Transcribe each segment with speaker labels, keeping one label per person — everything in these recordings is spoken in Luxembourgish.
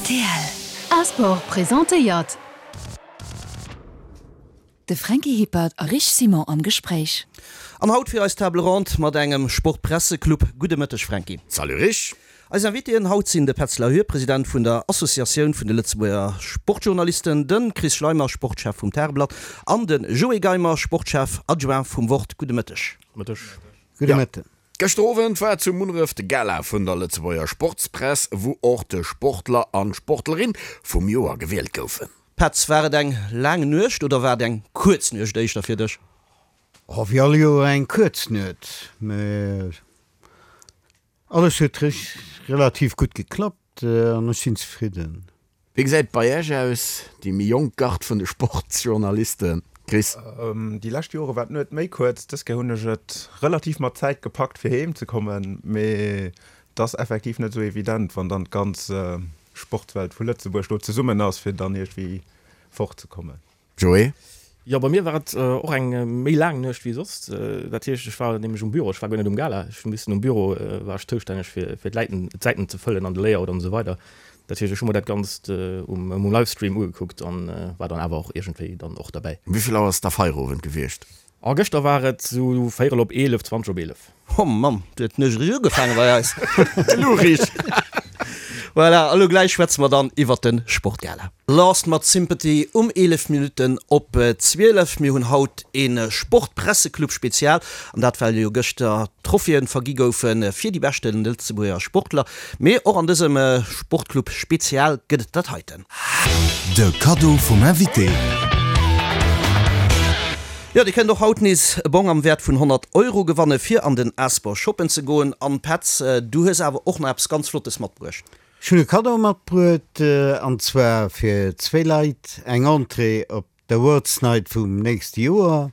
Speaker 1: Rtl. A-Sport presentéiert. De Franky Hippert a Rich Simon am Gespréich.
Speaker 2: An haut fir eis Table Ronde mat engem Sportpresseclub. Gudde Mëtteg Franky.
Speaker 3: Salut Rich.
Speaker 2: Eis Invitéen haut sinn de Petz Lahure, President vun der Associatioun vun de Lëtzebuerger Sportjournalisten, de Chris Schleimer, Sportchef vum Tageblatt an de Joé Geimer, Sportchef adjoint vum Wort. Gudde Mëtteg.
Speaker 3: Mëtteg.
Speaker 4: Gudde Mëtten.
Speaker 3: Gëschter Owend war zu Munneref de Gala vun der Lëtzebuerger Sportspress, wou och de Sportler an d'Sportlerin vum Joer gewielt goufen.
Speaker 2: Petz, war et eng laang Nuecht oder war et eng kuerz Nuecht éischter fir dech?
Speaker 4: Oh, wéi all Joer eng kuerz Nuet, mä alles huet relativ gutt geklappt an ech sinn zefridden.
Speaker 3: Wéi gesäit et bei Iech aus, déi méi jonk Gard vun de Sportsjournalisten, Chris?
Speaker 5: Déi lescht Jore war d'Nuet méi kuerz. Dës Kéier hunn ech et relativ mat Zäit gepackt fir heem ze kommen, mee et ass effektiv net esou evident, wann dann d'ganz Sportswelt vu Lëtzebuerg do zesummen ass, fir dann iergendwéi fortzekommen.
Speaker 3: Joé?
Speaker 6: Jo, bei mir war et och eng méi laang Nuecht wéi soss. Dat heescht, ech war nämlech um Büro, ech war guer net um Gala. Ech hu missen um Büro, war ech zoustänneg fir fir d'Läiten, d'Säiten ze fëllen an de Layout an esou weider. Dat heescht, ech hu mer dat Ganzt um um Livestream ugekuckt an war dann awer och iergendwéi dann och derbäi.
Speaker 3: Um wéi vill Auer ass da Feierowend gewiescht?
Speaker 6: A gëschter war et sou véierel op 11, 20 op 11.
Speaker 2: Oh Mamm, du huet d'Nuecht eréischt ugefaange bei eis.
Speaker 3: Elo richt.
Speaker 2: Voilà, elo gläich schwätze mer dann iwwert de Sportgala. Lost mat Sympathy um 11 Minutten op 12. Mir hunn haut ee Sportpresseclub Spezial, an dat well jo gëschter Trophéeë vergi goufe fir déi beschte Lëtzebuerger Sportler. Mee och an dësem Sportclub Spezial gëtt et dat heiten.
Speaker 1: De Kaddo vum Invité.
Speaker 2: Jo, dir kënnt och haut nees e Bong am Wäert vun 100 Euro gewanne fir an den Asper shoppen ze goen. An Petz, du hues awer och nach eppes ganz Flottes matbruecht.
Speaker 4: Ech hunn e Kaddo matbruet, an zwar fir zwéi Leit eng Entrée op d'Awards Night vum nächste Joer.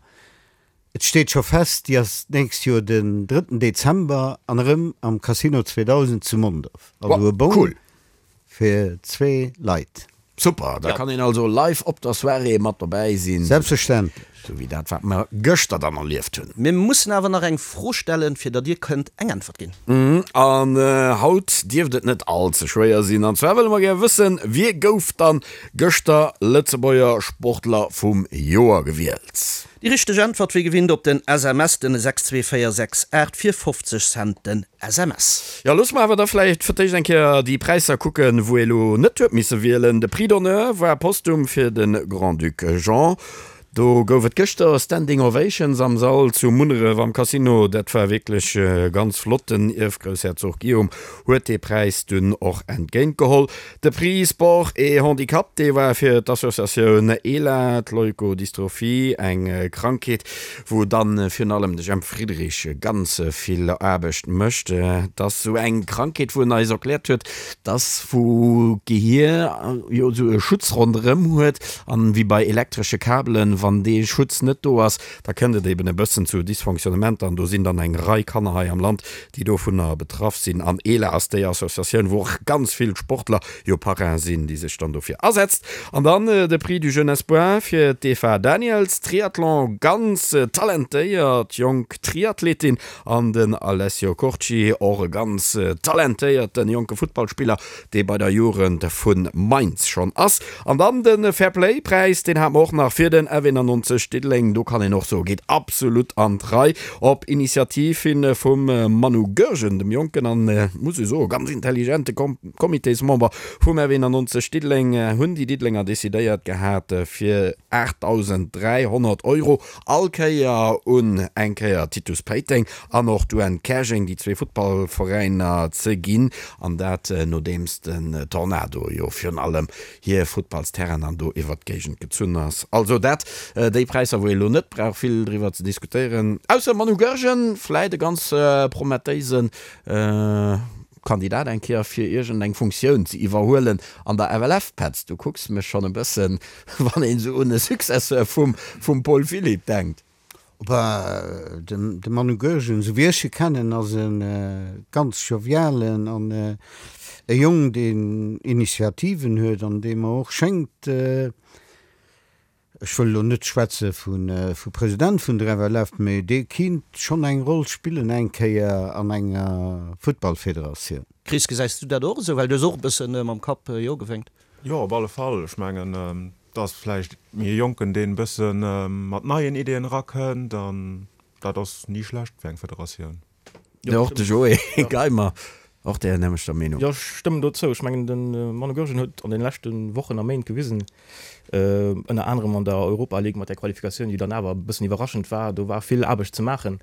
Speaker 4: Et steet scho fest, déi ass d'nächst Joer den drëtten Dezember an erëm am Casino 2000 zu Mondorf. Also e Bong fir zwee Leit.
Speaker 3: Super, da kann een also live op der Soirée mat dobäi sinn.
Speaker 4: Selbstverständlech.
Speaker 3: Sou wéi dat wat mer gëschter dann erlieft hunn.
Speaker 2: Mir mussen awer nach eng Fro stellen, fir datt Dir kënnt eng Äntwert ginn.
Speaker 3: An haut dierft et net all ze schwéier sinn. An zwar wëlle mer gär wëssen, Wie gouf dann gëschter Lëtzebuerger Sportler vum Joer gewielt?
Speaker 2: Déi richteg Äntwert wéi gewinnt op den SMS den 62468 fir 50 Cent den SMS.
Speaker 3: Jo, loosse mer awer da vläicht fir d'éischt eng Kéier déi Präisser kucken, wou ee lo net huet misse wielen. De Prix d'honneur war postum fir de Grand-Duc Jean. Do gouf et gëschter Standing Ovations am Sall zu Munneref am Casino. Dat war wierklech ganz flott. Den Ierfgroussherzog Guillaume huet dee Präis dunn och entgéint geholl. De Prix Sport et Handicap, dee war fir d'Associatioun ELA, d'Leukodystrophie, eng Krankheet, wou dann virun allem de Jemp Friedrich ganz vill Aarbecht mécht. Et ass esou eng Krankheet, wou en eis erkläert huet, dass wou d'Gehier jo esou e Schutz ronderëm huet an wéi bei elektresche Kabelen, wann dee Schutz net do ass, da kënnt et eben e bëssen zu Dysfonctionnementer an do sinn dann eng Rei Kanner hei am Land, déi dovunner betraff sinn. An ELA ass déi Associatioun, wou och ganz vill Sportler jo Parrain sinn, déi sech dann dofir asetzt. An dann de Prix du Jeune Espoir fir d'Eva Daniels, Triathlon, ganz talentéiert jonk Triathletin, an den Alessio Curci, och e ganz talentéierten jonke Futtballspiller, dee bei der Jugend vu Mainz schonn ass. An dann de Fair-Play Präis, deen hate mer och nach fir den F91 Diddeleng. Do kann een och soen, geet absolut an d'Rei. Op Initiativ hi vum Manu Goergen, dem jonken an, muss ech soen, ganz intelligente Comitésmember vum F91 Diddeleng, hunn déi Diddelenger decidéiert gehat, fir 8.300 Euro all Kéier un eng Kéier Titus Péiteng an och d'UN Käerjeng, déi zwee Futtballveräiner, ze ginn. An dat nodeems den Tornado jo virun allem hir Futtballsterrainen an do iwwert d'Géigend gezunn ass. Also dat déi Präisser, wou ee lo net brauch vill driwwer ze diskutéieren, ausser Manu Goergen, vläit e ganz promettéise Kandidat eng Kéier fir iergend eng Funktioun ze iwwerhuelen an der FLF. Petz, du kucks mech schonn e bëssen, wann een esou un e Successeur vum vum Paul Philipp denkt.
Speaker 4: Bah, de Manu Goergen, esou wéi ech e kennen, ass e ganz jovialen an e Jong, deen Initiativen huet an dee mer och schéngt. Ech wëll elo net schwätze vu President vun der FLF, mee dee kinnt schonn eng Roll spillen eng Kéier an enger Futtballfederatioun.
Speaker 2: Chris, gesäis du dat och esou? Well du hues och e bësse mam Kapp jo gewénkt.
Speaker 5: Jo, op alle Fall. Ech mengen, et ass vläicht méi e Jonken, deen e bësse mat neien Ideeën erakënnt an dat ass ni schlecht fir eng Federatioun.
Speaker 3: Jo, och de Joé Geimer, och där nämmlechter Meenung.
Speaker 6: Jo, ech stëmmen do zou. Ech mengen, de Manu Goergen huet an deene leschte Wochen a Méint gewisen, ënner anerem an der Europa League mat där Qualifikatioun, déi dann awer e bëssen iwwerraschend war, do war vill Aarbecht ze maachen,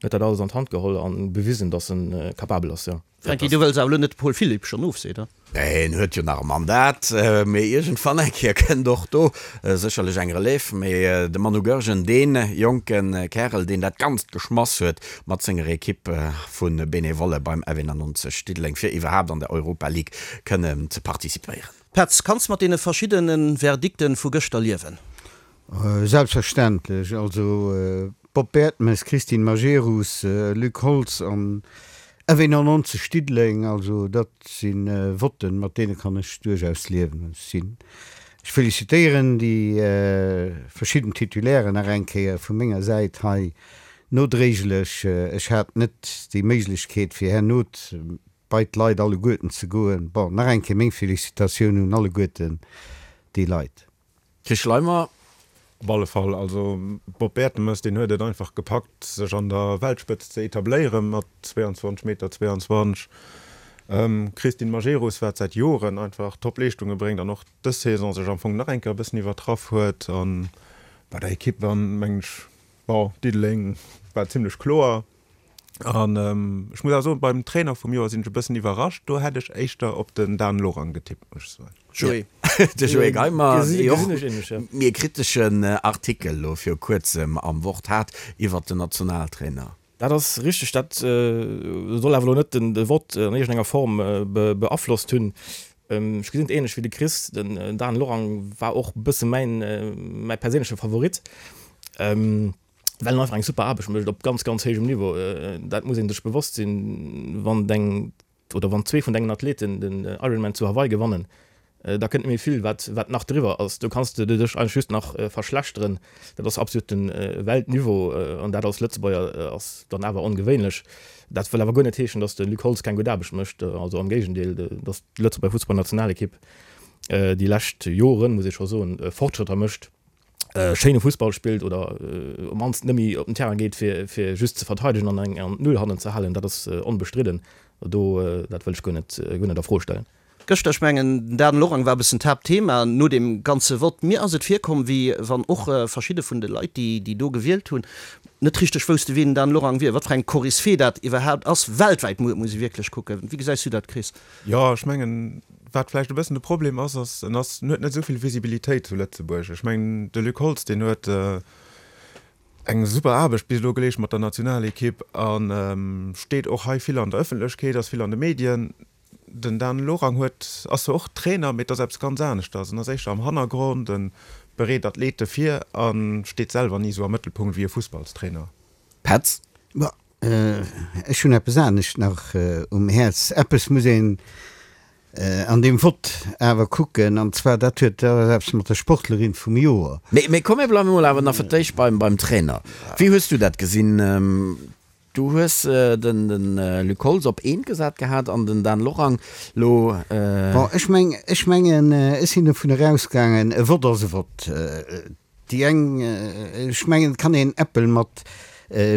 Speaker 6: huet dat alles an d'Hand geholl a bewisen, datt e capabel ass, jo.
Speaker 2: Franky, du wëlls awer elo net de Paul Philipp schonn ofseet,
Speaker 3: oder? Nee, en huet jo nach e Mandat, mee iergendwann eng Kéier kënnt och do sécherlech eng Relève. Mee de Manu Goergen, dee jonke Kärel, deen dat Ganzt geschmass huet mat senger Ekipp vu Benevolle beim F91 Diddeleng, fir iwwerhaapt an der Europa League kënnen ze participéieren.
Speaker 2: Petz, kanns mat deene verschiddene Verdikten vu gëschter liewen?
Speaker 4: Selbstverständlech. Also Bob Bertemes, Christine Majerus, Luc Holtz an F91 Diddeleng, also dat si Votten, mat deene kann ech duerchaus liewen. Ech sinn, ech felicitéieren déi verschidden Titulairen nach eng Kéier vu menger Säit hei nodréiglech. Ech hat net déi Méiglechkeet fir herno bei d'Leit alleguerten ze goen. Bon, nach eng Kéier meng Felicitatioun un alleguerten déi Leit.
Speaker 3: Chris Schleimer.
Speaker 5: Op alle Fall. Also Bob Bertemes, deen huet et einfach gepackt, sech an der Weltspëtzt ze etabléieren mat 22 Meter 22. Christine Majerus, wat säit Joren einfach top Leeschtunge bréngt an och dës Saison sech am Fong nach eng Kéier e bëssen iwwertraff huet. A bei der Ekipp dann, mengen ech, bon, Diddeleng war zimlech kloer. An ech muss awer soen, beim Trainer vum Joer sinn ech e bëssen iwwerrascht. Do hätt ech éischter op den Dan Lorang getippt, muss ech
Speaker 3: soen. Joé. De Joé Geimer, dee och méi e kriteschen Artikel elo viru kuerzem am Wort hat iwwert den Nationaltrainer.
Speaker 6: Dat ass richteg. Dat soll awer elo net de Vott an iergendenger Form beaflosst hunn. Ech gesinn et änlech wéi de Chris. Den Dan Lorang war och e bësse mäin, mäi perséinleche Favorit. Well en einfach eng super Aarbecht mécht op ganz, ganz héijem Niveau. Dat muss ee sech bewosst sinn, wann deng oder wann zwee vun dengen Athleten den Ironman zu Hawaii gewannen, da kënnt net méi vill, wat, wat nach driwwer ass. Do kanns de dech eigentlech just nach verschlechteren. Dat ass absoluten Weltniveau an dat als Lëtzebuerger ass dann awer ongewéinlech. Dat wëll awer guer net heeschen, datt de Luc Holtz keng gutt Aarbecht mécht. Also am Géigendeel, datt d'Lëtzebuerger Fussballnationalekipp déi lescht Joren, muss ee scho soen, Fortschrëtter mécht. schéine Fussball spillt oder op mannst net méi op den Terrain geet fir fir just ze verteidegen an eng an d'Null hannen ze halen, dat ass onbestridden. Do dat wëll ech guer net guer net a Fro stellen.
Speaker 2: Gëschter, ech mengen den Dan Lorang war e bëssen d'Haaptthema no deem ganze Vott. Mir ass et virkomm, wéi wann och verschidde vun de Leit, déi déi do gewielt hunn, net richteg wousste wien den Dan Lorang wier, wat fir eng Koryphée dat iwwerhaapt ass. Weltwäit muss ee wierklech kucken. Wéi gesäis du dat, Chris?
Speaker 5: Jo, ech mengen, wat vläicht e bëssen de Problem ass, ass, en ass, en huet net esou vill Visibilitéit zu Lëtzebuerg. Ech mengen, de Luc Holtz, deen huet eng super Aarbecht bis elo geleescht mat der Nationalekipp a steet och hei vill an der Ëffentlechkeet, ass vill an de Medien. Den Dan Lorang huet, ass zwar och Trainer, mee et ass eppes ganz aneschters. En ass éischter am Hannergrond, e bereet Athlete vir a steet selwer ni esou am Mëttelpunkt wéi e Fussballstrainer.
Speaker 3: Petz.
Speaker 4: Ma ech hunn eppes anescht nach um Häerz. Eppes muss een an deem Vott awer kucken, an zwar dat huet dat ass eppes mat der Sportlerin vum Joer.
Speaker 3: Mee komm mir bleiwe mol awer nach fir d'éischt beim beim Trainer. Wéi hues du dat gesinn? Du hues den den Luc Holtz op eent gesat gehat an den Dan Lorang lo.
Speaker 4: Bon, ech meng ech mengen ech sinn dovun erausgaangen, e Vott ass e Vott. Déi eng, ech mengen, et kann een Äppel mat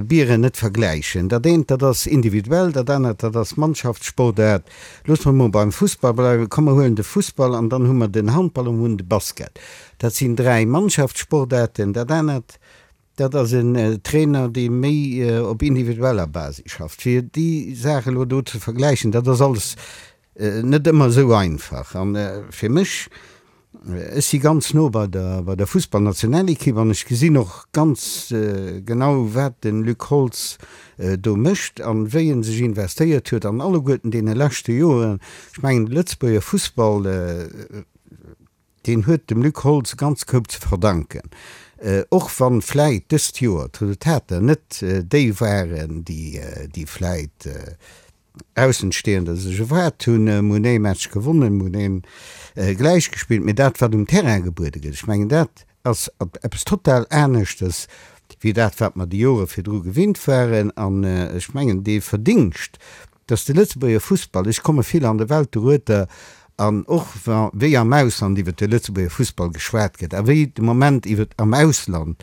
Speaker 4: Bieren net vergläichen. Dat eent, dat ass individuell, dat anert, dat ass Mannschaftssportaart. Loosse mer mol beim Fussball bleiwen. Komm, mer huelen de Fussball an dann hu mer den Handball an mer hunn de Basket. Dat sinn 3 Mannschaftssportaarten. Dat anert, dat ass en Trainer, dee méi op individueller Basis schafft. Fir déi Saach elo do ze vergläichen, dat ass alles net ëmmer esou einfach. An fir mech, ech si ganz no bei der bei der Fussballnationalekipp an ech gesinn och ganz genau wat de Luc Holtz do mécht an wéi en sech investéiert huet an alleguerten deene leschte Joren. Ech mengen de Lëtzebuerger Fussball, deen huet dem Luc Holtz e ganze Koup ze verdanken, och wann vläit dëst Joer d'Resultater net déi waren, déi vläit Aussenstehender sech erwaart hunn. Mir hunn ee Match gewonnen, mir hunn een gläich gespillt, mee dat wat um Terrain gebuede gëtt, ech mengen dat. ass eppes total aneschtes wéi dat, wat mer déi Jore virdru gewinnt waren. An ech mengen, dee Verdingscht, dass de Lëtzebuerger Fussball, ech komme vill an der Welt dorueter, an och wa wéi am Ausland iwwert de Lëtzebuerger Fussball geschwat gëtt a wéi de Moment iwwert am Ausland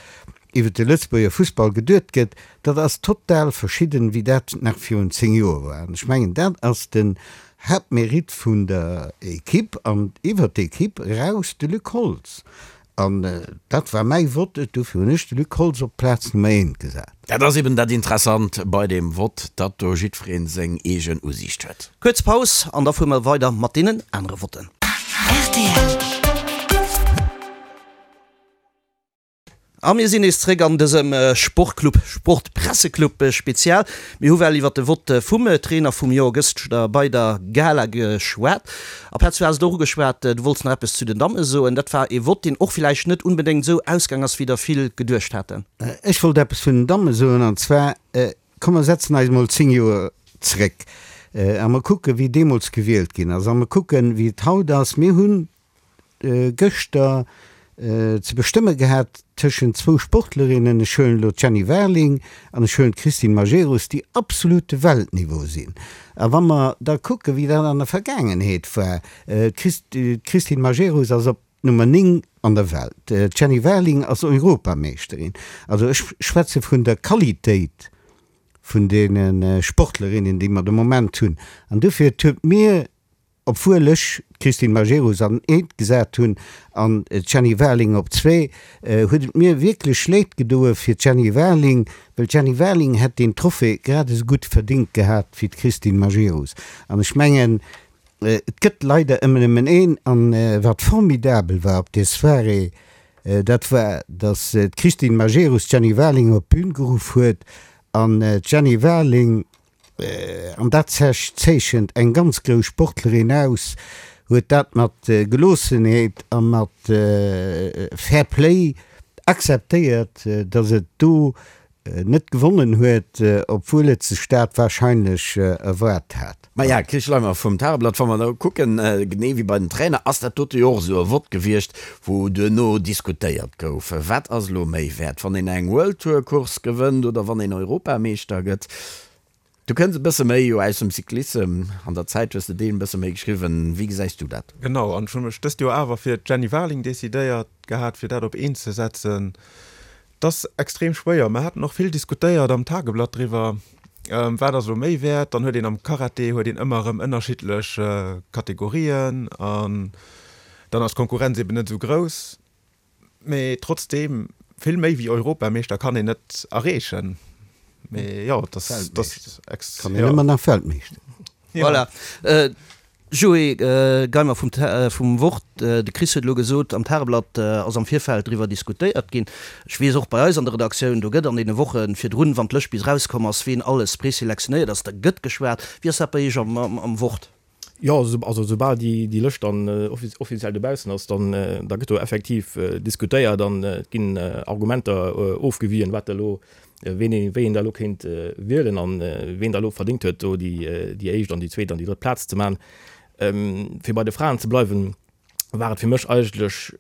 Speaker 4: iwwert de Lëtzebuerger Fussball geduet gëtt, dat ass total verschidden, wéi dat nach virun 10 Joer war. An ech mengen, dat ass den Haaptmérite vun der Equipe an iwwert d'Equipe eraus de Luc Holtz. An dat war mäi Vott, dofir hunn ech de Luc Holtz op d'Plaz Nummer eent gesat.
Speaker 3: Dat ass eben dat Interessant bei deem Vott, datt do jiddweree seng eegen Usiicht huet.
Speaker 2: Kuerz Paus an da fuere mer weider mat deenen anere Votten. Rtl. A mir sinn nees zréck an dësem Sportclub, Sportpresseclub Spezial. Mir hu well iwwert de Vott vum Trainer vum Joer gëschter bei der Gala geschwat. A Petz, du has et och ugeschwat, du wollts nach eppes zu den Damme soen. Dat war ee Vott, deen och villäicht net unbedéngt esou ausgaang ass, wéi der vill geduecht haten.
Speaker 4: Ech wollt eppes vun den Damme soen, an zwar, komm mer setzen eis emol 10 Joer zréck a mer kucken, wéi deemools gewielt ginn ass, a mer kucken, wéi et haut ass. Mir hunn gëschter ze bestëmme gehat tëschent zwou Sportlerinnen, ech huelen elo d'Jenny Warling an ech huelen d'Christine Majerus, déi absolut de Weltniveau sinn. A wa mer da kucken, wéi dat an der Vergaangenheet war, d'Christine Majerus ass op Nummer 9 an der Welt, d'Jenny Warling ass Europameeschterin. Also ech schwätze vun der Qualitéit vun deene Sportlerinnen, déi mer de Moment hunn. An dofir, et huet mir Obwuel ech d'Christine Majerus an eent gesat hunn an d'Jenny Warling op zwee, huet et mir wierklech leed gedoe fir d'Jenny Warling, well d'Jenny Warling hätt deen Trophée grad esou gutt verdéngt gehat wéi d'Christine Majerus. An ech mengen, et gëtt leider ëmmer nëmmen een. An wat formidabel war op där Soirée, dat war, datt d'Christine Majerus d'Jenny Warling op d'Bün geruff huet an d'Jenny Warling, an dat zeechent eng ganz grouss Sportlerin aus, huet dat mat Geloossenheet a mat Fair Play akzeptéiert, datt et do net gewonnen huet, obwuel et sech dat warscheinlech erwaart hat.
Speaker 3: Maja, Chris Schleimer vum Tageblatt, wa mer da kucken, genee wéi bei den Trainer, ass dat dote jo och esou e Vott gewiescht, wou duerno diskutéiert gouf, wat ass elo méi wäert, wann een eng World Tour Course gewënnt oder wann een Europameeschter gëtt. Du kënns e bësse méi jo aus dem Cyclissem, an der Zäit hues de deen e bësse méi geschriwwen. Wéi gesäis du dat?
Speaker 5: Genau, an ech hu mech dëst Joer awer fir d'Jenny Warling decidéiert gehat, fir dat op eent ze setzen. Et ass extrem schwéier. Mer haten och vill diskutéiert am Tageblatt driwwer, wat ass elo méi wäert. Dann huet een am Karate huet een ëmmer erëm ënnerschiddlech Kategorien an dann ass d'Konkurrenz eben net esou grouss. Mee trotzdeem, vill méi wéi Europameeschter kann een net erreechen. Mee jo, et ass, et ass
Speaker 4: ex. Kann een ëmmer nach Weltmeeschter.
Speaker 2: Voilà. Joé Geimer vum, vum Wort. De Chris huet elo gesot, am Tageblatt ass am Virfeld driwwer diskutéiert ginn. Ech weess och bei eis an der Redaktioun, do gëtt an deene Woche virdrun, wann d'Lëscht bis erauskomm ass, ween alles preselektionéiert ass, da gëtt geschwat. Wéi ass dat bei Iech am, am Wort?
Speaker 6: Jo, also soubal déi Lëscht dann offiziell dobaussen ass, dann da gëtt do effektiv diskutéiert an et ginn Argumenter ofgewien, wat da elo, ween ee wéi een da elo kéint wielen an ween da elo verdéngt huet, do déi éischt an déi zweet an déi drëtt Plaz ze man. Fir bei de Fraen ze bleiwen, war et fir mech eigentlech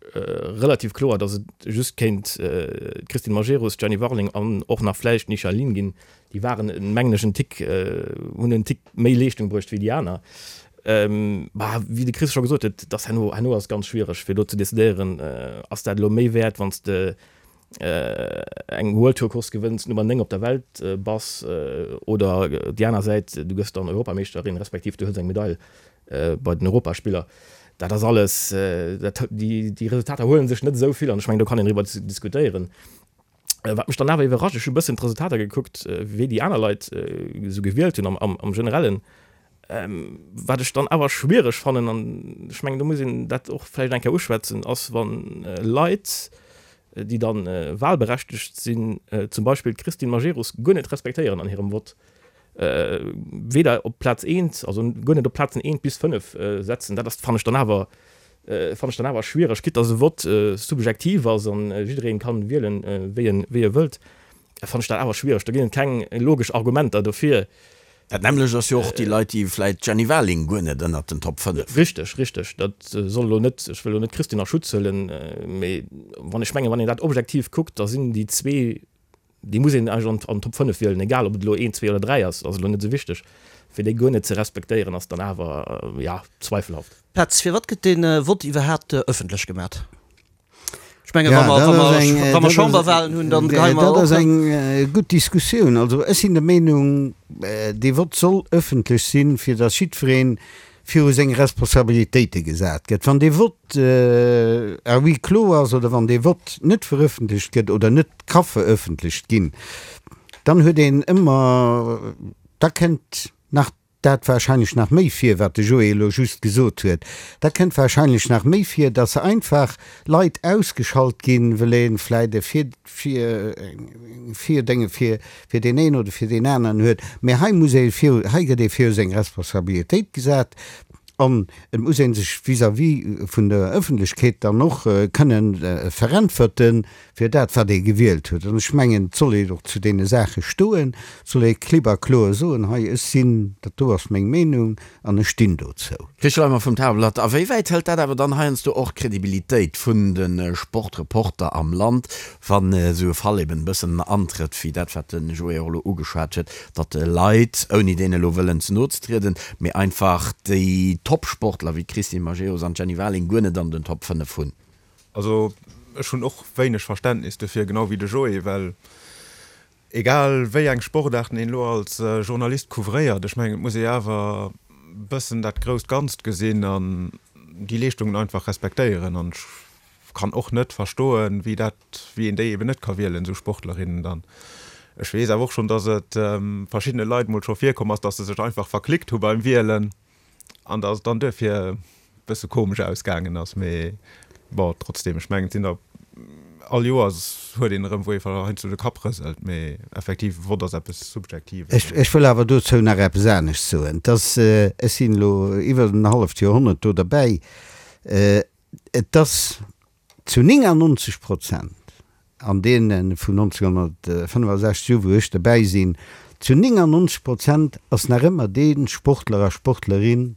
Speaker 6: relativ kloer, datt et just kéint d'Christine Majerus, d'Jenny Warling an och nach vläicht d'Nisha Lin ginn. Déi waren, mengen ech, en Tick, hunn en Tick méi Leeschtung bruecht wéi déi aner. Bah, wéi de Chris scho gesot huet, et ass herno, herno ass et ganz schwiereg fir elo ze decidéieren, ass dat elo méi wäert, wann s de eng World Tour Course gewënns, Nummer 9 op der Welt bass, oder déi aner Säit, du gëss dann Europameeschterin, respektiv du hëls eng Medail bei den Europaspiller. Dat ass alles, dat, déi, déi Resultater huele sech net esou vill an ech mengen, do kann een driwwer diskutéieren. Wat mech dann awer iwwerrascht, ech hu e bëssen d'Resultater gekuckt, wéi déi aner Leit esou gewielt hunn am, am, am Generellen. Wat ech dann awer schwiereg fannen, an ech mengen, do muss een dat och vläicht eng Kéier uschwätzen, ass, wann Leit, déi dann wahlberechtegt sinn, zum Beispill d'Christine Majerus guer net respektéieren an hirem Vott, weder op Plaz eent, also guer net op Plazen eent bis fënnef setzen, dat ass, fannen ech dann awer, fannen ech dann awer schwiereg, quitte dass e Vott subjektiv ass an jiddereen kann wielen, wéi en, wéi e wëllt, fannen ech dat awer schwiereg. Do ginn et keng logesch Argumenter dofir.
Speaker 3: Dat nämmlecht ass jo och déi Leit, déi vläit d'Jenny Warling guer net ënnert den Top 5.
Speaker 6: Richteg, richteg. Dat soll elo net, ech wëll elo net d'Christine a Schutz huelen, mee wann ech mengen, wann een dat objektiv kuckt, da sinn déi zwee, déi muss een eigentlech an d'Top 5 wielen, egal ob et elo een, zwee oder dräi ass, ass elo net esou wichteg. Fir déi guer net ze respektéieren, ass dann awer, jo, zweifelhaft.
Speaker 2: Petz, firwat gëtt dee Vott iwwerhaapt ëffentlech gemat? Ech menge wa mer, wa mer, wa mer Chamberwahlen hunn, dann geheie mer
Speaker 4: och. Dat ass eng gutt Diskussioun. Also ech sinn der Meenung, dee Vott soll ëffentlech sinn, fir datt jiddweree viru seng Responsabilitéite gesat gëtt. Wann dee Vott à huis clos ass oder wann dee Vott net verëffentlecht gëtt oder net ka verëffentlecht ginn, dann huet een ëmmer, da kënnt nach dat wahrscheinlech nach méi vir, wat de Joé elo just gesot huet, da kënnt wahrscheinlech nach méi vir, dass einfach Leit ausgeschalt ginn, wëll ee vläit e Vir, Vir, Virdénge fir, fir deen een oder fir deen aneren huet. Mä hei muss ee viru, hei gëtt ee viru seng Responsabilitéit gesat an et muss ee sech vis-à-vis vun der Ëffentlechkeet dann och kënnen veräntwerten, fir dat wat ee gewielt huet. An ech mengen, et soll een och zu deene Saache stoen, et soll ee klipp a kloer soen, hei ech sinn, dat do ass meng Meenung an ech stinn dozou.
Speaker 3: Chris Schleimer vum Tageblatt, A wéi wäit hëlt dat awer dann heiansdo och d'Credibilitéit vun de Sportreporter am Land, wann esou e Fall eben e bëssen antrëtt wéi dat wat de Joé och elo ugeschwat huet, datt Leit, ouni deene elo wëllen ze no ze trieden, mee einfach déi Top-Sportler wéi d'Christine Majerus an d'Jenny Warling guer net an den Top 5 hunn?
Speaker 5: Also ech hunn och wéineg Verständnis dofir, genau wéi de Joé, well egal wéi eng Sportaarten een elo als Journalist couvréiert, ech mengen et muss ee awer bëssen dat grousst Ganzt gesinn an déi Leeschtungen einfach respektéieren. An ech kann och net verstoen, wéi dat, wéi een déi eben net ka wielen, esou Sportlerinnen dann. Ech weess awer och schonn, datt et verschiddene Leit mol scho virkomm ass, datt se sech einfach verklickt hu beim Wielen. An dass et dann duerfir e bësse komesch ausgaangen ass. Mee bon, trotzdem, ech mengen, et sinn der, all Joers huet een erëm, wou ee heiansdo de Kapp rëselt. Mee effektiv, Vott ass eppes Subjektives.
Speaker 4: Ech, ech wëll awer dozou nach eppes anescht soen. Et ass, ech sinn elo iwwer en halleft Joerhonnert do derbäi, et ass zu 99 Prozent an deene vun 1965 u wou ech derbäi sinn, zu 99 Prozent ass nach ëmmer dee Sportler a Sportlerin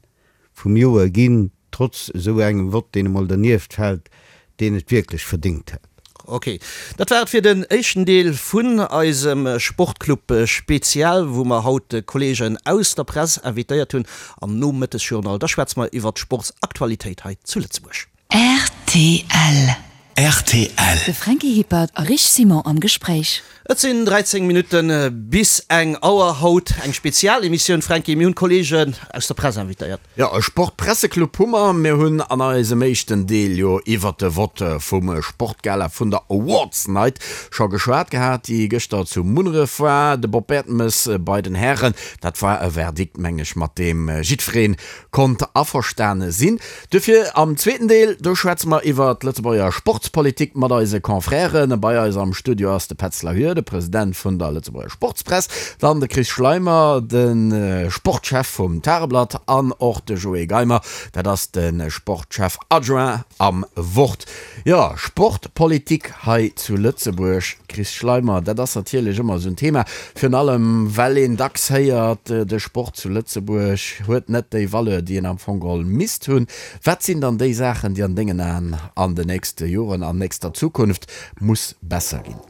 Speaker 4: vum Joer ginn, trotz esou engem Vott deen emol dernieft fält, deen et wierklech verdéngt hätt.
Speaker 2: Ok, dat war et fir den éischten Deel vun eisem Sportclub Spezial, wou mer haut Kollegen aus der Press invitéiert hunn. Am Nomëttesjournal, da schwätze mer iwwert d'Sportsaktualitéit hei zu Lëtzebuerg.
Speaker 1: Rtl.
Speaker 3: Rtl.
Speaker 1: De Franky Hippert a Rich Simon am Gespréich.
Speaker 2: Et sinn 13 Minutte bis eng Auer. Haut eng Spezialemissioun, Franky. Mir hunn d'Kollegen aus der Press invitéiert.
Speaker 3: Jo, e Sportpresseclub hu mer. Mir hunn an eisem éischten Deel jo iwwert de Vott vum Sportgala vun der Awards Night scho geschwat gehat, déi gëschter zu Munneref war. De Bob Bertemes bei den Hären, dat war e Verdikt, meng ech, mat deem jiddweree konnt averstane sinn. Duerfir am zweeten Deel, do schwätze mer iwwer d'Lëtzebuerger Sportspolitik mat eise Confrèren. Bei eis am Studio ass de Petz Lahure, de President vun der Lëtzebuerger Sportspress, dann de Chris Schleimer, de Sportchef vum Tageblatt an och de Joé Geimer, dat ass de Sportchef adjoint am Wort. Jo, Sportpolitik hei zu Lëtzebuerg, Chris Schleimer, dat ass natierlech ëmmer esou en Thema, virun allem well een dacks héiert, de Sport zu Lëtzebuerg huet net déi Valeur, déi en am Fong geholl misst hunn. Wat sinn dann déi Saachen, déi an dengen Aen an den nächste Joren, an nächster Zukunft muss besser ginn?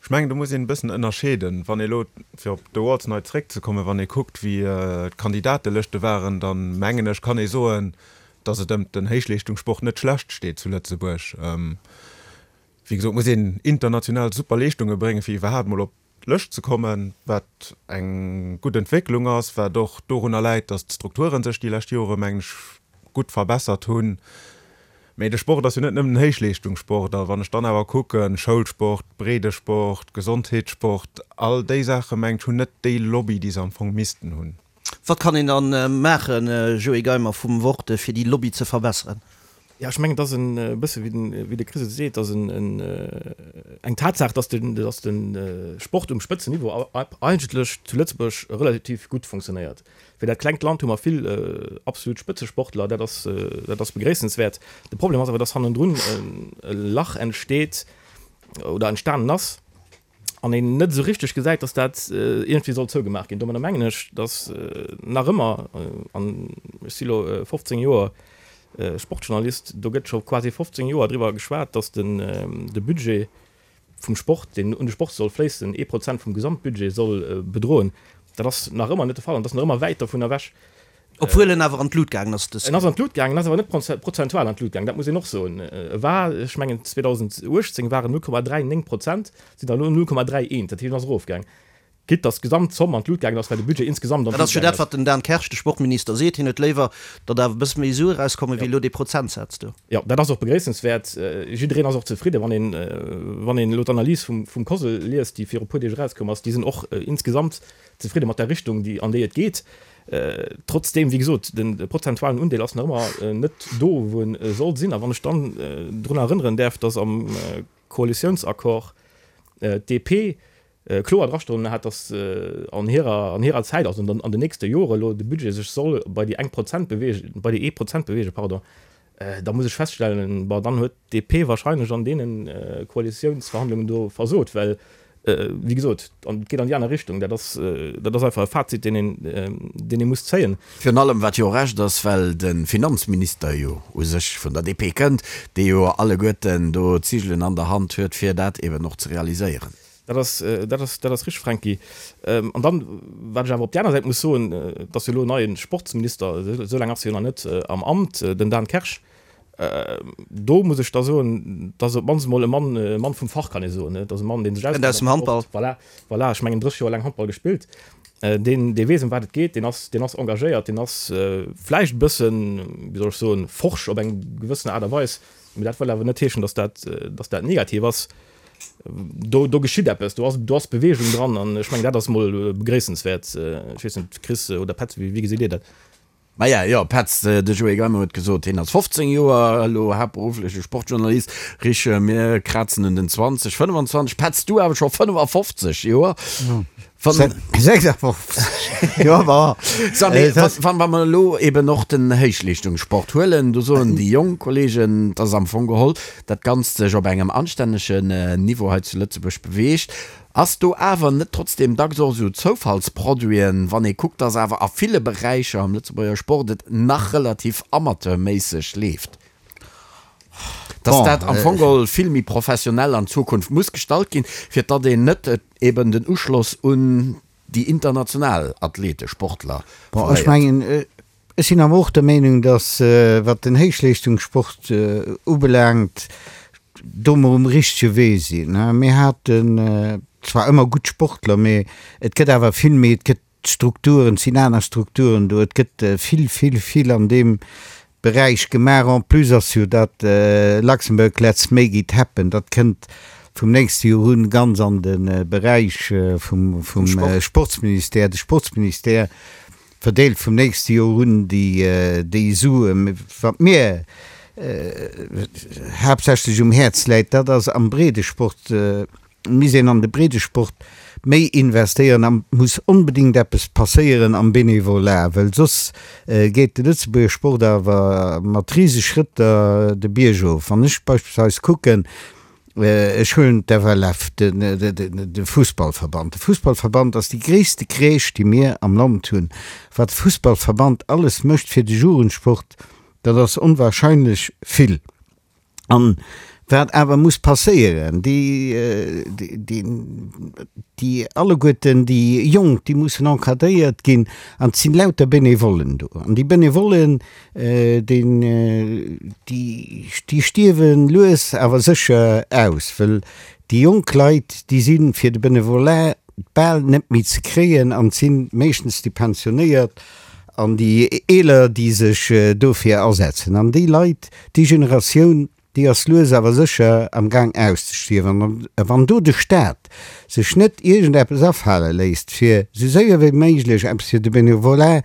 Speaker 5: Ech mengen, do muss een e bëssen ënnerscheeden. Wann ee elo, fir op d'Awards Night zréckzekommen, wann ee kuckt, wéi d'Kandidatelëschte waren, da mengen ech, kann ee soen, datt et ëm den Héichleeschtungssport net schlecht steet zu Lëtzebuerg. Wéi gesot muss een international super Leeschtunge bréngen, fir iwwerhaapt mol op d'Lëscht ze kommen, wat eng gutt Entwécklung ass, wat och dorunner läit, datt d'Strukture sech déi lescht Jore, mengen ech, gutt verbessert hunn. Mee de Sport ass jo net nëmmen den Héichleeschtungssport. A wann ech dann awer kucken, Schoulsport, Breedesport, Gesondheetssport, all déi Saache mengen ech hunn net déi Lobby, déi se am Fong missten hunn.
Speaker 2: Wat kann een dann maachen, Joé Geimer vum Wort, fir déi Lobby ze verbesseren?
Speaker 6: Jo, ech mengen, et ass e bësse wéi de Chris et seet, et ass eng Tatsaach, datt de Sport um Spëtzenniveau eigentlech zu Lëtzebuerg relativ gutt funktionéiert. Fir dat klengt Land hu mer vill absolut Spëtzesportler, dat ass, dat ass begréissenswäert. De Problem ass awer, dass hannendrun e Lach entsteet oder entstanen ass. An een net esou richteg gesäit, datt dat iergendwéi soll zougemaach ginn. Domadder mengen ech, datt nach ëmmer, an ech si lo 15 Joer Sportjournalist, do gëtt scho quasi 15 Joer driwwer geschwat, datt de Budget vum Sport, deen un de Sport soll fléissen, ee Prozent vum Gesamtbudget soll bedroen. Dat ass nach ëmmer net de Fall an dat ass nach ëmmer wäit dovun ewech.
Speaker 2: Obwuel en awer an d'Lut gaangen ass dës.
Speaker 6: En ass an d'Lut gaangen, en ass awer net prozentual an d'Lut gaangen, dat muss een och soen. E war, ech mengen 2018 war en 0,39 Prozent, sinn der elo 0,31, dat heescht en ass erofgaang. Quitte datt d'Gesamtzomm an d'Lut gaangen ass, well de Budget insgesamt an
Speaker 2: Dat
Speaker 6: d'Lut
Speaker 2: ass jo
Speaker 6: gaangen
Speaker 2: dat,
Speaker 6: ass.
Speaker 2: wat den Dan Kersch, de Sportminister, seet. Hien huet léiwer, datt awer e bësse méi Sue erauskommen, wéi elo dee Prozentsaz do.
Speaker 6: Jo, dat ass och begréissenswäert. Jiddereen ass och zefridden, wann een, wann een elo d'Analys vum, vum COSL liest, déi viru e puer Deeg erauskomm ass. Déi sinn och insgesamt zefridde mat der Richtung, déi, an déi et geet. Trotzdeem, wéi gesot, de prozentualen Undeel ass nach ëmmer net do, wou en soll sinn. A wann ech dann drun erënneren däerf, datt am Koalitiounsaccord d'DP kloer drastoen hat, datt an hirer, an hirer Zäit, also an den nächste Jore elo de Budget sech soll bei déi eng Prozent bewegen, bei déi ee Prozent bewegen, pardon, da muss ech feststellen, bon, dann huet d'DP wahrscheinlech an deene Koalitiounsverhandlungen do versot, well, wéi gesot, et geet an déi aner Richtung. Dat ass, dat ass einfach e Fazit, deen een, deen ee muss zéien.
Speaker 3: Virun allem, wat jo och Recht ass, well de Finanzminister jo u sech vun der DP kënnt, dee jo alleguerten do d'Zigelen an der Hand huet, fir dat eben och ze realiséieren.
Speaker 6: Dat ass, dat ass, dat ass richtig, Franky. An dann, wat ech awer op där aner Säit muss soen, et ass jo elo en neie Sportsminister, esou laang ass hie jo nach net am Amt, den Dan Kersch. Do muss ech da soen, dat ass op d'mannst emol e Mann, e Mann vum Fach, kann ee soen. Dat ass e Mann, dee sech
Speaker 2: Kënnt aus dem Handball.
Speaker 6: Voilà, voilà, ech mengen 30 Joer laang Handball gespillt. Deen, dee weess, ëm wat et geet, deen ass, deen ass engagéiert, deen ass vläicht e bëssen, wéi soll ech soen, forsch op eng gewëssen Aart a Weis. Mee dat wëll awer net heeschen, datt dat, datt dat negativ ass. Do, do geschitt eppes, do ass, do ass Beweegung dran an ech mengen, dat ass emol begréissenswäert. Ech weess net, Chris oder Petz, wéi, wéi gesitt Dir dat?
Speaker 3: Maja, jo, Petz, de Joé Geimer huet gesot, hien ass 15 Joer elo haaptberuffleche Sportjournalist. Rich, mir krazen un den 20, 25, Petz, du awer scho 55 Joer. Wann,
Speaker 4: 56, jo, ma.
Speaker 3: Sa, mee wann, wa mer elo eben och den Héichleeschtungssport huelen, do soen déi jonk Kollegen, dass am Fong geholl dat Ganzt sech op engem anstännegen Niveau hei zu Lëtzebuerg beweegt. Ass do awer net trotzdem dacks och esou Zoufallsproduiten, wann ee kuckt, dass awer a ville Beräicher am Lëtzebuerger Sport et nach relativ amateurméisseg leeft? Dass dat am Fong geholl vill méi professionell an Zukunft muss gestallt ginn, fir datt een net eben den Uschloss un déi international Athlete, Sportler
Speaker 4: Bon, ech mengen, ech sinn awer och der Meenung, dass, wat den Héichleeschtungssport ubelaangt, do mer um richtege Wee sinn. Mir haten zwar ëmmer gutt Sportler, mee et gëtt awer vill méi, et gëtt D'Strukturen, et sinn aner Strukturen do, et gëtt vill, vill, vill an deem Beräich gemaach. En plus ass jo dat Luxembourg Let's Make It Happen, dat kënnt vum nächste Joer un ganz an de Beräich vum Sportsministère. De Sportsministère verdeelt vum nächste Joer un déi Suen. Wat mir haaptsächlech um Häerz läit, dat ass am Breedesport, misst een an de Breedesport méi investéieren a muss onbedéngt eppes passéieren am Bénévolat, well soss geet de Lëtzebuerger Sport awer mat rise Schrëtter de Bierg of. Wann ech beispillsweis kucken, ech huelen d'FLF, de Fussballverband, de Fussballverband ass déi gréisste Crèche, déi mir am Land hunn. Wat de Fussballverband alles mécht fir de Jugendsport, dat ass onwahrscheinlech vill. An wat awer muss passéieren, déi, déi alleguerten déi Jonk, déi mussen encadréiert ginn an et sinn lauter Benevollen do. An déi Benevollen, déi, déi stierwe lues awer sécher aus, well déi jonk Leit, déi si fir de Benevolat bal net méi ze kréien an et si meeschtens déi Pensionéiert an déi Eeler, déi sech dofir asetzen. An déi Leit, Déi Generatioun, déi ass lues awer sécher am Gaang auszestierwen. A wann do de Staat sech net iergendeppes afale léisst, fir esou séier wéi méiglech eppes fir de Benevolat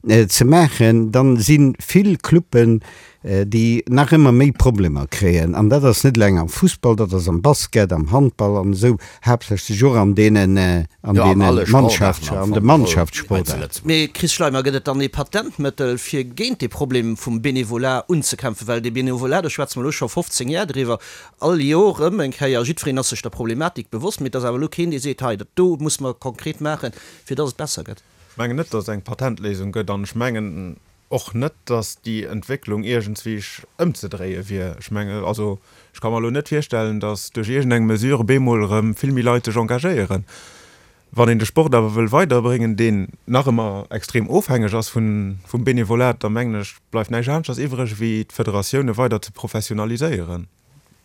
Speaker 4: ze maachen, dann si vill Cluben. déi nach ëmmer méi Problemer kréien. An dat ass net eleng am Fussball, dat ass am Basket, am Handball an esou, haaptsächlech och an deenen, an
Speaker 3: Jo, an
Speaker 4: deene
Speaker 3: alle Sportaarten
Speaker 4: Mannschafts-,
Speaker 3: am
Speaker 4: an de
Speaker 3: Fong geholl hei zu
Speaker 4: Mannschaftssportaarten.
Speaker 3: Lëtzebuerg.
Speaker 2: Mee Chris Schleimer, gëtt et dann ee Patentmëttel, fir géint dee Problem vum Bénévolat unzekämpfen? Well dee Bénévolat, do schwätze mer elo scho 15 Jar driwwer, all Jor erëm eng Kéier, jiddwereen ass sech der Problematik bewosst, mee et ass awer elo keen, dee seet, hei, dat do muss mer konkret maachen, fir dass et besser gëtt.
Speaker 5: Ech mengen net, dass et eng Patentléisung gëtt an ech mengen och net, dass déi Entwécklung iergendswéi ëmzedréie wier. Ech mengen, also ech ka mer elo net virstellen, dass duerch iergendeng Mesure bemol erëm vill méi Leit sech engagéieren. Wann een de Sport awer wëll weiderbréngen, deen nach ëmmer extrem ofhängeg ass vum Benevolat, da mengen ech, bleift näischt aneschters iwwreg, wéi d'Federatioune weider ze professionaliséieren.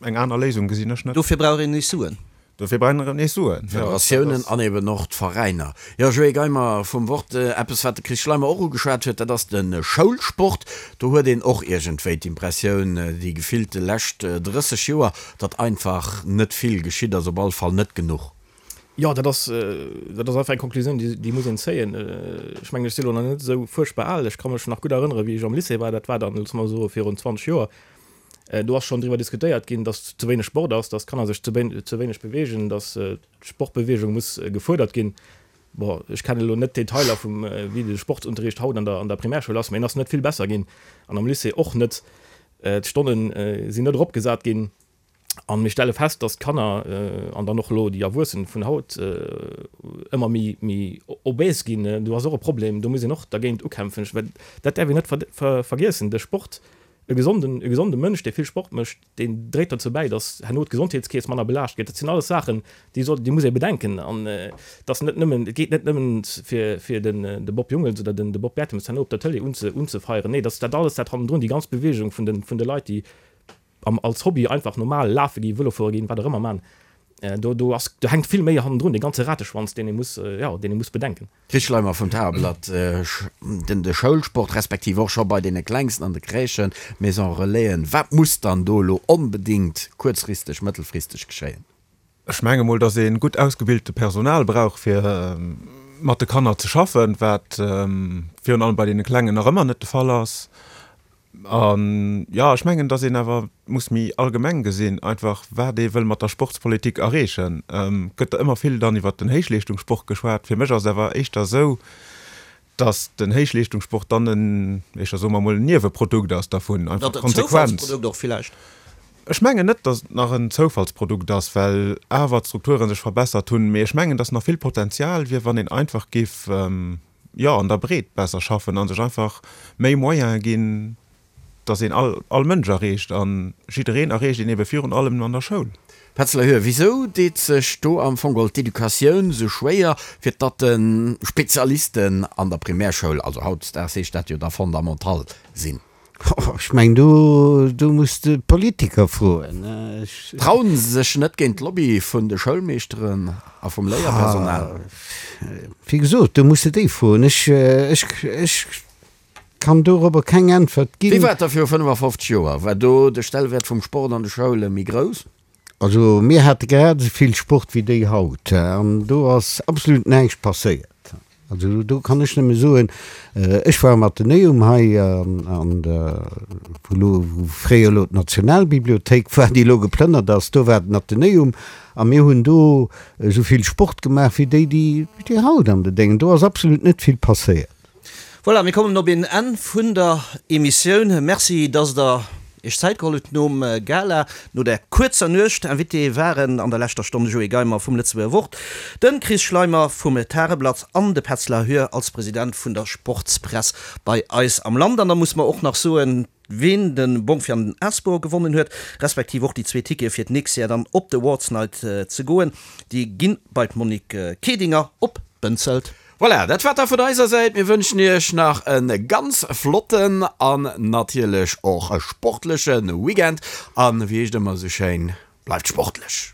Speaker 5: Eng aner Léisung gesinn ech net.
Speaker 2: Dofir brauch een nees Suen.
Speaker 5: Dofir brauch een nees Suen, jo.
Speaker 3: D'Federatiounen an eben och d'Veräiner. Jo, Joé Geimer vum Wort. Eppes, wat de Chris Schleimer och ugeschwat huet, dat ass de Schoulsport. Do huet een och iergendwéi d'Impressioun, déi gefillte lescht 30 Joer, datt einfach net vill geschitt ass, op all Fall net genuch.
Speaker 6: Jo, dat ass, dat ass einfach eng Konklusioun, déi, déi muss een zéien. Ech mengen, ech si lo nach net esou fuerchtbar al. Ech ka mech nach gutt erënneren, wéi ech am Lycée war, dat war dann, loosse mer soe virun 20 Joer, Do ass schonn driwwer diskutéiert ginn, dass ze wéineg Sport ass, dass d'Kanner sech ze wéineg beweegen, dass d'Sportbeweegung muss gefuerdert ginn. Bon, ech kennen elo net d'Detailer vum, wéi de Sportsunterricht haut an der an der Primärschoul ass, mä en ass net vill besser ginn an am Lycée och net. D'Stonne sinn net eropgesat ginn a mir stelle fest, dass d'Kanner an dann och elo déi Erwuessen vun haut ëmmer méi méi obèse ginn. Do ass och e Problem, do muss een och dergéint ukämpfen. Well dat däerf een net vergiessen, de Sport E gesonden, e gesonde Mënsch, dee vill Sport mécht, deen dréit dozou bäi, datt herno d'Gesondheetskeess manner belaascht gëtt. Dat sinn alles Saachen, déi soll, déi muss ee bedenken. An et ass net nëmmen, et geet net nëmmen fir, fir den, de Bob Jungels oder den, de Bob Bertemes herno op der Tëlee unze, unzefeieren. Nee, dat ass dat alles, dat hannendrun, déi ganz Beweegung vun de, vun de Leit, déi am, als Hobby einfach normal lafe ginn, Vëlo fuere ginn, wat och ëmmer man. Do, do ass, do hänkt vill méi hannendrun, dee ganze Rateschwanz, deen ee muss, jo, deen ee muss bedenken.
Speaker 3: Chris Schleimer vum Tageblatt, Den de Schoulsport, respektiv och scho bei deene Klengsten an de Crèchen, Maison Relaisen, wat muss dann do elo onbedéngt kuerzfristeg, mëttelfristeg geschéien?
Speaker 5: Ech menge mol, datt ee gutt ausgebilte Personal brauch, fir mat de Kanner ze schaffen, wat virun allem bei deene Klengen nach ëmmer net de Fall ass. An, jo, ech mengen, datt een awer muss méi allgemeng gesinn, einfach wat ee wëll mat der Sportspolitik erreechen. Gëtt der ëmmer vill dann iwwert den Héichleeschtungssport geschwat. Fir mech ass et awer éischter esou, datt den Héichleeschtungssport dann en, éischter soe mer emol, en Nieweprodukt ass dervun, einfach d'Konsequenz.
Speaker 2: Zoufallsprodukt och villäicht.
Speaker 5: Ech mengen net, datt et nach en Zoufallsprodukt ass, well awer d'Strukture sech verbessert hunn. Mee ech mengen, datt nach vill Potenzial wier, wann een einfach géif, jo, an der Breet besser schaffen a sech einfach méi Moyene ginn, dass een all, all Mënsch erreecht. A jiddereen erreecht een ebe virun allem an der Schoul.
Speaker 3: Petz Lehue, Wisou deet sech do am Fong geholl d'Educatioun sou schwéier, fir datt de Spezialisten an der Primärschoul, also hautdesdaags heescht dat jo da Fondamental, sinn?
Speaker 4: Ech mengen, do, do muss de d'Politiker froen.
Speaker 3: Ech. Trauen se sech net géint d'Lobby vun de Schoulmeeschteren a vum Léierpersonal?
Speaker 4: Wéi gesot, do muss de déi froen. Ech, ech, ech kann dorobber keng Äntwert ginn.
Speaker 3: Wéi war et da viru 55 Joer? War do de Stellwäert vum Sport an de Schoule méi grouss?
Speaker 4: Also mir hate grad esou vill Sport wéi déi haut an do ass absolut näischt passéiert. Also do kann ech nëmme soen, ech war am Athenäum hei an der, wou elo, wou fréier elo d'Nationalbibliothéik war, déi elo geplënnert ass, do war den Athenäum a mir hunn do esou vill Sport gemaach wéi déi, déi haut an de Déngen. Do ass absolut net vill passéiert.
Speaker 2: Voilà, mir kommen op een Enn vun der Emissioun. Merci, dass Der Iech Zäit geholl hutt nom Gala, no der kuerzer Nuecht. Invité waren an der leschter Stonn de Joé Geimer vum Lëtzebuerger Wort, de Chris Schleimer vum Tageblatt an de Petz Lahure als President vun der Sportspress bei eis am Land. An da musse mer och nach soen, ween de Bong fir an den Asbor gewonnen huet, respektiv och déi zwee Tickete fir d'nächst Jar dann op d'Awards Night ze goen, déi gi bei d'Monique Kedinger op Bënzelt.
Speaker 3: Voilà, dat war da vun eiser Säit. Mir wënschen iech nach e ganz flotten an natierlech och sportleche Weekend. An wéi heescht ëmmer esou schéin, bleift sportlech!